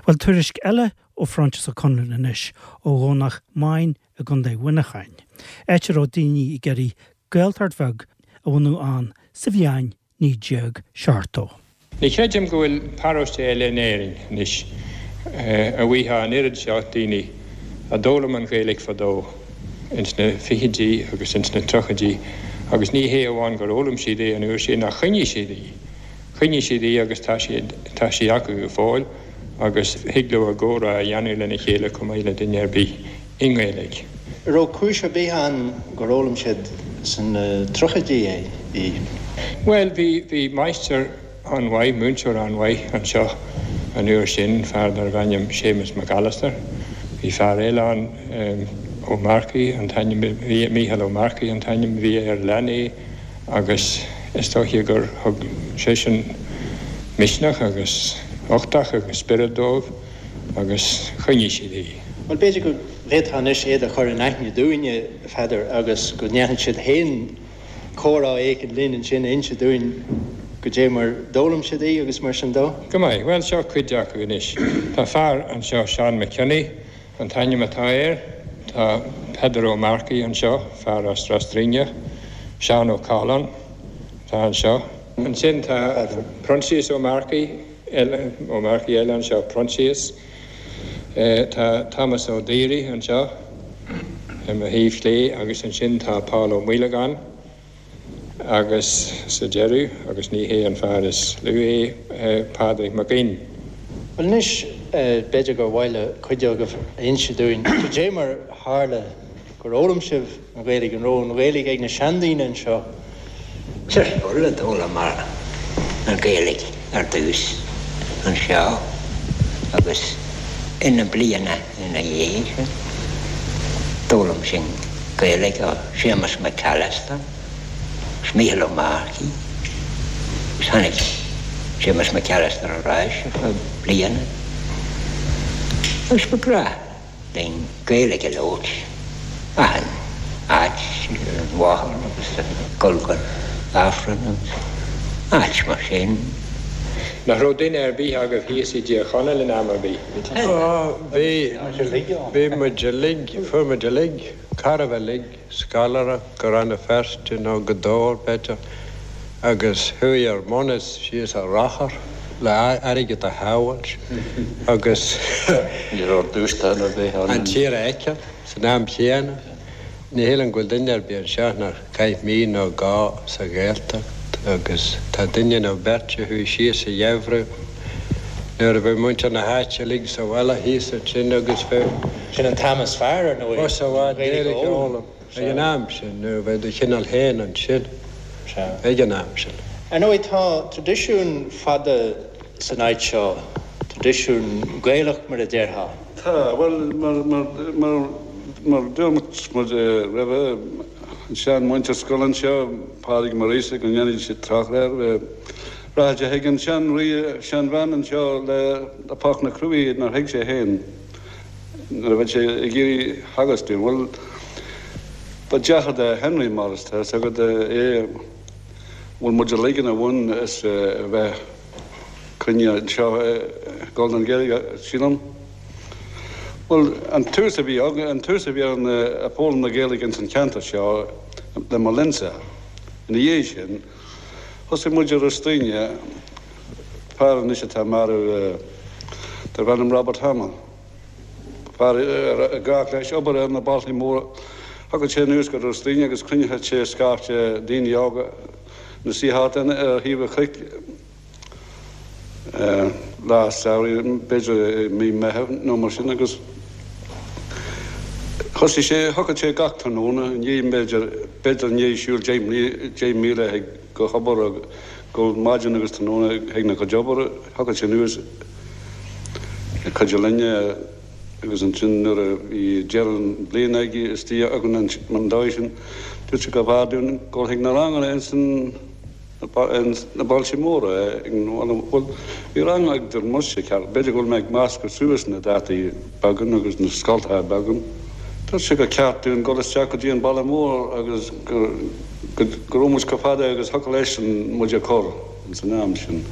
Bhuel, tuairisc eile ó Phroinsias Ó Conluain anois, ó Dhomhnach Maighin i gContae Mhuineacháin, áit a raibh daoine ag iarraidh Gaeltacht bheag a bhunú ann sa bhliain 1970. Ní chreidim go bhfuil paróiste eile in Éirinn anois a bhfaighfeá an oiread seo daoine a d'fhoghlaim an Ghaeilge fadó ins na fichidí agus ins na tríochaidí agus ní hé amháin gur fhoghlaim siad é an uair sin ach choinnigh siad í. Choinnigh siad í agus tá siad, tá sí acu go fóill agus thig leo a gcomhrá a dhéanamh lena chéile chomh maith le duine ar bith i nGaeilge. An raibh cúis ar bith ann gur fhoghlaim siad sna tríochaidí í? Bhuel, bhí, bhí máistir an-mhaith, múinteoir an-mhaith anseo an uair sin, fear darbh ainm Séamus Mac Alastair. Bhí fear eile ann, Ó Marcaigh an t-ainm a bhí, Mícheál Ó Marcaigh an t-ainm a bhí air, lean é agus is dóiche gur thug seisean misneach agus uchtach agus spiorad dóibh. agus choinnigh siad í. Bhuel, b'fhéidir go bhféadfá anois iad a chur in aithne dúinne, a Pheadair, agus go ndéanfadh siad féin comhrá éicint linn ansin, inse dúinn goidé mar d'fhoghlaim siad í agus mar sin dó. Go maith. Bhuel, seo cuid acu anois. Tá fear anseo, Seán Mac Cionnaith an t-ainm atá air. Tá Peadar Ó Marcaigh anseo, fear as Ros Druíneach. Seán Ó Cathaláin atá anseo. Ansin tá Proinsias Ó Marcaigh. eile, Ó Marcaigh eile anseo, Proinsias. Tá Thomas Ó Daoraí anseo ar mo thaobh chlé agus ansin tá Paul Ó Maolagáin agus sa deireadh, agus ní hé an fear is lú é, Pádraig Mac Fhinn. Bhuel anois, b'fhéidir gur mhaith le cuid agaibh a inse dúinn cad é mar tharla gur fhoghlaim sibh an Ghaeilge, an raibh an Ghaeilge ag na seandaoine anseo? Sa scoil a d'fhoghlaimeamar an Ghaeilge ar dtús anseo agus ina bliana ina dhiaidh sin d'fhoghlaim sinn Gaeilge ó Séamus McAllister agus Mícheál Ó Marcaigh agus tháinig Séamus McAllister ar ais ar feadh bliana agus ba ghnách linn Gaeilge a labhairt achan áit, ar an bhóthar agus ag dul go Aifreann agus áit mar sin. Nach raibh duine ar bith agaibh thíos i dTír Chonaill in am ar bith? Á, bhí, bhí muid uilig, fuair muid uilig, chóir a bheith uilig, scoláireacht go Rann na Feirste nó go Dobhar, b'fhéidir, agus chuaigh ár mbunús síos ar rothar le airgead a shábháilt agus Ní raibh dúshlán ar bith ann. an tír a fheiceáil san am chéanna. Ní shílim go bhfuil duine ar bith anseo nár chaith mí nó dhó sa Ghaeltacht agus tá duine nó beirt a chuaigh síos sa gheimhreadh nuair a bheadh muintir na háite uilig sa bhaile thíos ansin agus bheadh Sin an t-am is fearr, ar ndóigh, Bus i bhfad Gaeilge a fhoghlaim ag an am sin nuair a bheadh do chineál féin ansin ag an am sin. Ar ndóigh, tá traidisiún fada san áit seo, traidisiún Gaelach mar a déarfá. Tá, bhuel, mar, mar, mar, mar dúirt muid roimhe, an sean-mhúinteoir scoile anseo, Pádraig Maurice, go ndéanfaidh siad trácht air, rachadh sé chuig an sean-rí, seanbhean anseo le, le páirc na cruaí nár thuig sé féin. nuair a bheadh sé ag iarraidh theagasc dúinn. Bhuel, ba deartháir do Henry Morris, tá fhios agat, é, bhfuil muid uilig ina bhun is a bheith cruinnithe anseo ag dul don Ghaeilge, sílim. Bhuel, an tús a bhí againn, an tús a bhí ar an foghlaim na Gaeilge ins an cheantar seo le mo linnsa. Ina dhiaidh sin, thosaigh muid i Ros Duibhne, fear anois atá marbh darb ainm Robert Hamill. Fear ar ghnách leis obair ar na bailte móra. Thagadh sé anuas go Ros Duibhne agus chruinneodh sé scaifte daoine óga ina suí thart ar thaobh an chnoic lá samhraidh, b'fhéidir i mí Meitheamh nó mar sin agus thosaigh sé, thiocfadh sé gach tráthnóna i ndiaidh, b'fhéidir, b'fhéidir i ndiaidh siúl 10 míle chuig go hobair agus go maidin agus tráthnóna chuig na cuid obair, thiocfadh sé anuas ag cuidiú linne agus ansin nuair a bhí deireadh an bhliain aige istigh againn an dóigh sin, dúirt sé go bhfearr dúinn dul chuig na ranganna ins na bailte móra ag an bhuel bhí rang ag Muise ceart, b'fhéidir go bhfuil mé ag meascadh suas na dátaí beagán agus na scoltacha beagán. Dúirt sé gur ceart dúinn dul isteach go dtí an baile mór agus go go raibh muid chomh fada agus thiocfadh leis muid a chur ins an am sin.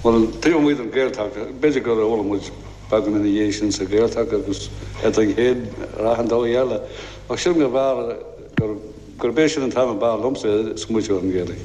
Bhuel, taobh amuigh den Ghaeltacht, b'fhéidir gur fhoghlaim muid beagán ina dhiaidh sin sa Ghaeltacht agus eadrainn féin ar achan dóigh eile, ach sílim go mb'fhearr gur, gurb é sin an t-am a b'fhearr liomsa smaoitiú ar an Ghaeilge.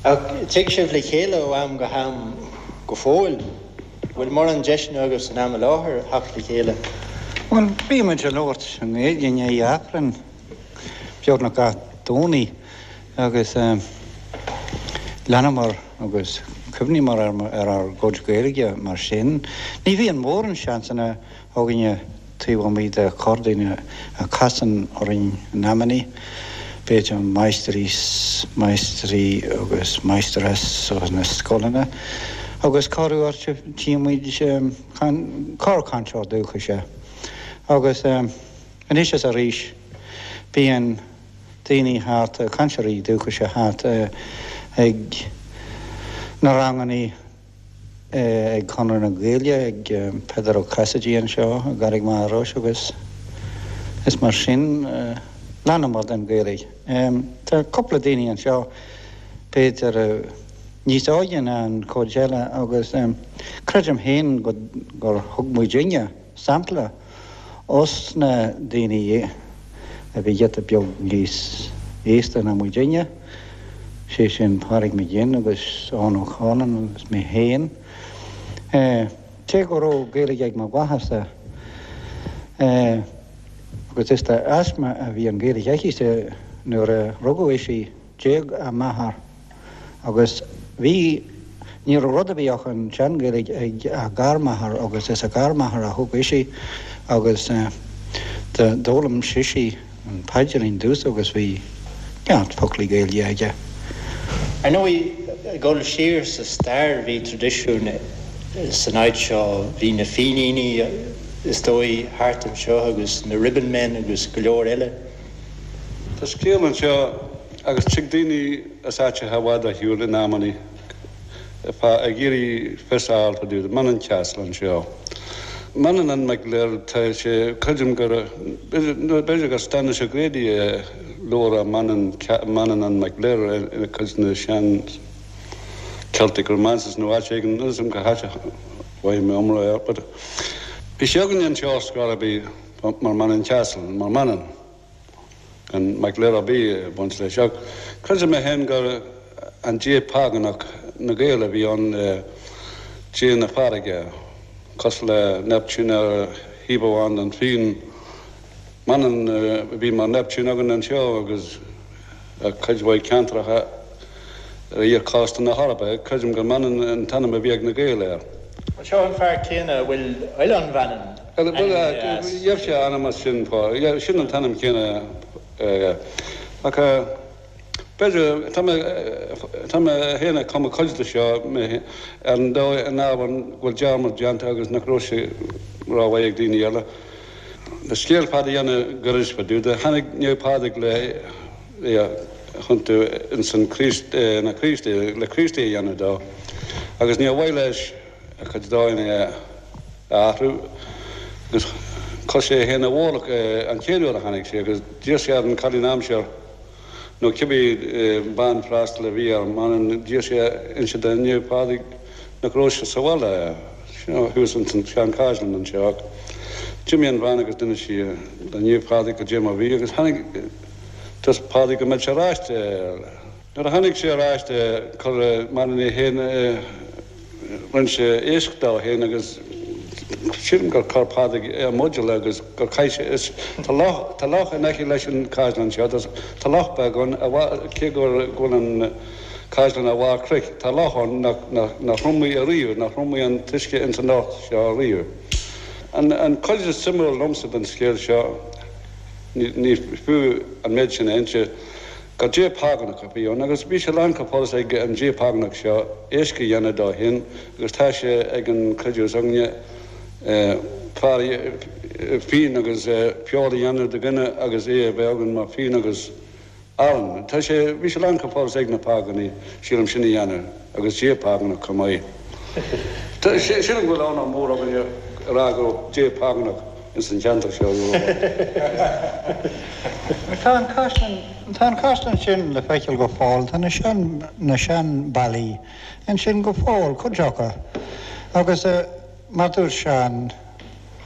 Ach tig sibh le chéile ó am go ham go fóill? Bhfuil mórán deiseanna agaibh san am i láthair theacht le chéile? Bhuel, bíonn muid ag labhairt i nGaeilge i ndiaidh Aifrinn beagnach gach Domhnaigh agus leanamar agus cuimhníomar ar ár gcuid Gaeilge mar sin. Ní bhíonn mórán seansanna againne taobh amuigh de chorrdhuine a chasann orainn in amannaí, b'fhéidir máistrí, máistrí agus máistreás ó na scoileanna agus corruair tchíonn muid corrchainteoir dúchais agus anois is arís bíonn daoine thart, cainteoirí dúchais thart ag na rangannaí. ag Conradh na Gaeilge, ag Peadar Ó Casaide anseo i gCarraig Mhachaire Rois agus is mar sin leanamar den Ghaeilge. Tá cúpla daoine anseo b'fhéidir níos óige ná an chuid eile agus creidim féin gur thug muidinne sampla os na daoine a bhí giota beag níos aosta ná muidinne, sé sin Pádraig Mac Fhinn agus Eoghan Ó Caoláin agus mé féin. Cé go raibh Gaeilge ag mo mháthairse, agus is de thaisme a bhí an Ghaeilge aici nuair a rugadh ise, D'éag a máthair agus bhí, ní raibh rud ar bith ach an tSean-Ghaeilge ag a garmháthair agus is a garmháthair a thóg ise agus d'fhoghlaim sise an paidrín dús agus bhí neart foclaí Gaeilge aige. Ar ndóigh, ag dul siar sa stair, bhí traidisiún san áit seo, bhí na Fíníní is dóigh thart anseo agus na Ribbonmen agus go leor eile. Tá scéal anseo agus tig daoine as áiteacha i bhfad ar shiúl in amannaí ag iarraidh fios a fháil fá dtaobh de Mannin Castle anseo. Manannán Mac Lir, tá sé, creidim gur, b'fhéidir gur Stanislaus O'Grady a labhair Mannin, Manannán Mac Lir i cuid de na sean Celtic Romances nó áit éigin, níl 'fhios a'm cá háit a bhfaighidh mé iomrá air but bhí sé againne anseo ar scor ar bith. Mar Mannin Castle, mar Manann, gan Mac Lir ar bith ag baint leis. Ach creidim mé féin gur an dia págánach na Gael a bhí ann, dia na farraige, cosúil le Neptune ar thaobh amháin den bhfíon. Manann a bhí mar Neptune againn anseo agus i cuid mhaith ceantracha ar iar-chósta na hEorpa. Creidim gur Manann an t-ainm a bhí ag na Gaeil air. Seo an fear céanna a bhfuil Oileán Mhanann ainmnithe as. Gheibh sé a ainm as sin, sin an t-ainm céanna aige. Ach b'fhéidir, tá mé, tá mé féin ag cumadh cuid de seo ar an dóigh, an ábhar go bhfuil dearmad déanta agus nach raibh sé rómhaith ag daoine eile. Le scéal fada a dhéanamh gairid fá dtaobh de, tháinig Naomh Pádraig le é a thiontú ins an Chríost, ina Chríostaí, le Críostaí a dhéanamh dó agus níor mhaith leis a chuid dóigheanna a athrú agus chuir sé é féin i bhfolach an chéad uair a tháinig sé agus d'iarr sé ar an chailín aimsir nó cibé bean freastail a bhí ar Manainn d'iarr sé inse do Naomh Pádraig nach raibh sé sa bhaile thuas ins an seanchaisleán anseo ach d'imigh an bhean agus d'inis sí do Naomh Pádraig goidé mar bhí agus tháinig dúirt Pádraig go mbeadh sé ar ais Nuair a tháinig sé ar ais chuir Manann é féin rinne sé éisc dó féin agus sílim gur chuir Pádraig é i mbuidéal agus gur chaith sé is tá loch tá loch in aice leis an chaisleán seo tá loch beag ann cé go bhfuil an caisleán ar bharr cnoic tá loch ann nach nach nach thriomaigh ariamh nach thriomaigh an t-uisce ins an loch seo ariamh. An an chuid is suimiúil liomsa den scéal seo ní ní fiú an méid sin a inse Gur dia págánach a bhí ann agus bhí sé lán chomh fada is ag an dia págánach seo éisc a dhéanamh dó féin agus tá sé ag an creideamh s'againne fear fíon agus feoil a dhéanamh de dhuine agus é a bheith againn mar fíon agus arán. Tá sé, bhí sé lán chomh fada is ag na págánaigh sílim sin a dhéanamh agus dia págánach chomh maith. Sílim go bhfuil onóir mór againne a rá go raibh dia págánach. ins an cheantar seo uair amháin. Tá an caisleán, tá an caisleán sin le feiceáil go fóill, tá na sean, na sean ballaí ansin go fóill, cuid acu. Agus mar dúirt Seán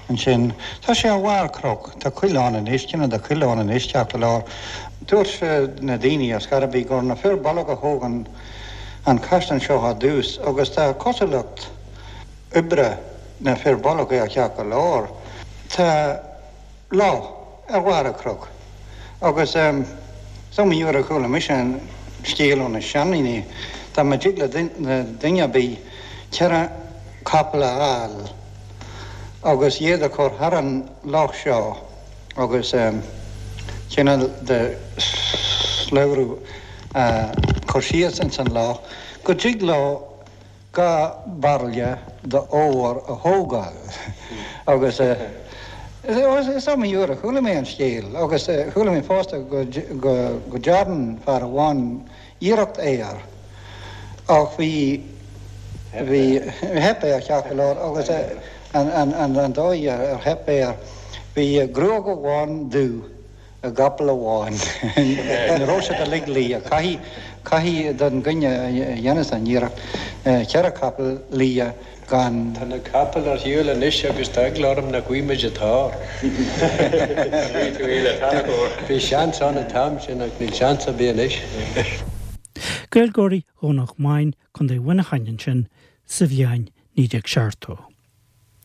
ansin, tá sé ar bharr cnoc, tá coill ann anois, cineál de choill ann anois, ceart go leor. Dúirt na daoine ar scor ar bith gur na fir bolg a thóg an, an caisleán seo ar dtús agus tá cosúlacht, oibre na fir bolg air ceart go leor. Tá loch ar bharr an chnoic agus is iomaí uair a chuala mise an scéal ó na seandaoine, dá mba dtig le duine ar bith cheithre chapall a fháil agus iad a chur thar an loch seo agus cineál de slabhra a chur síos ins an loch go dtig leo 2 bairille d'ór a thógáil agus is iomaí uair a chuala mé an scéal agus chuala mé fosta go dtearn fear amháin iarracht air ach bhí bhí theip air ceart go leor agus an dóigh ar theip air bhí gruag amháin dubh i gcapall amháin. Ní raibh siad uilig liath. Caithfidh, caithfidh don dhuine a dhéanas an iarracht cheithre chapall liath gan. Tá na capaill ar shiúl anois agus tá eagla orm nach bhfaighidh muid an t-ór. Bhí seans ann an t-am sin ach níl seans ar bith anois. Gaeilgeoirí Dhomhnach Maighin, Co. Mhuineacháin ansin sa bhliain 1970.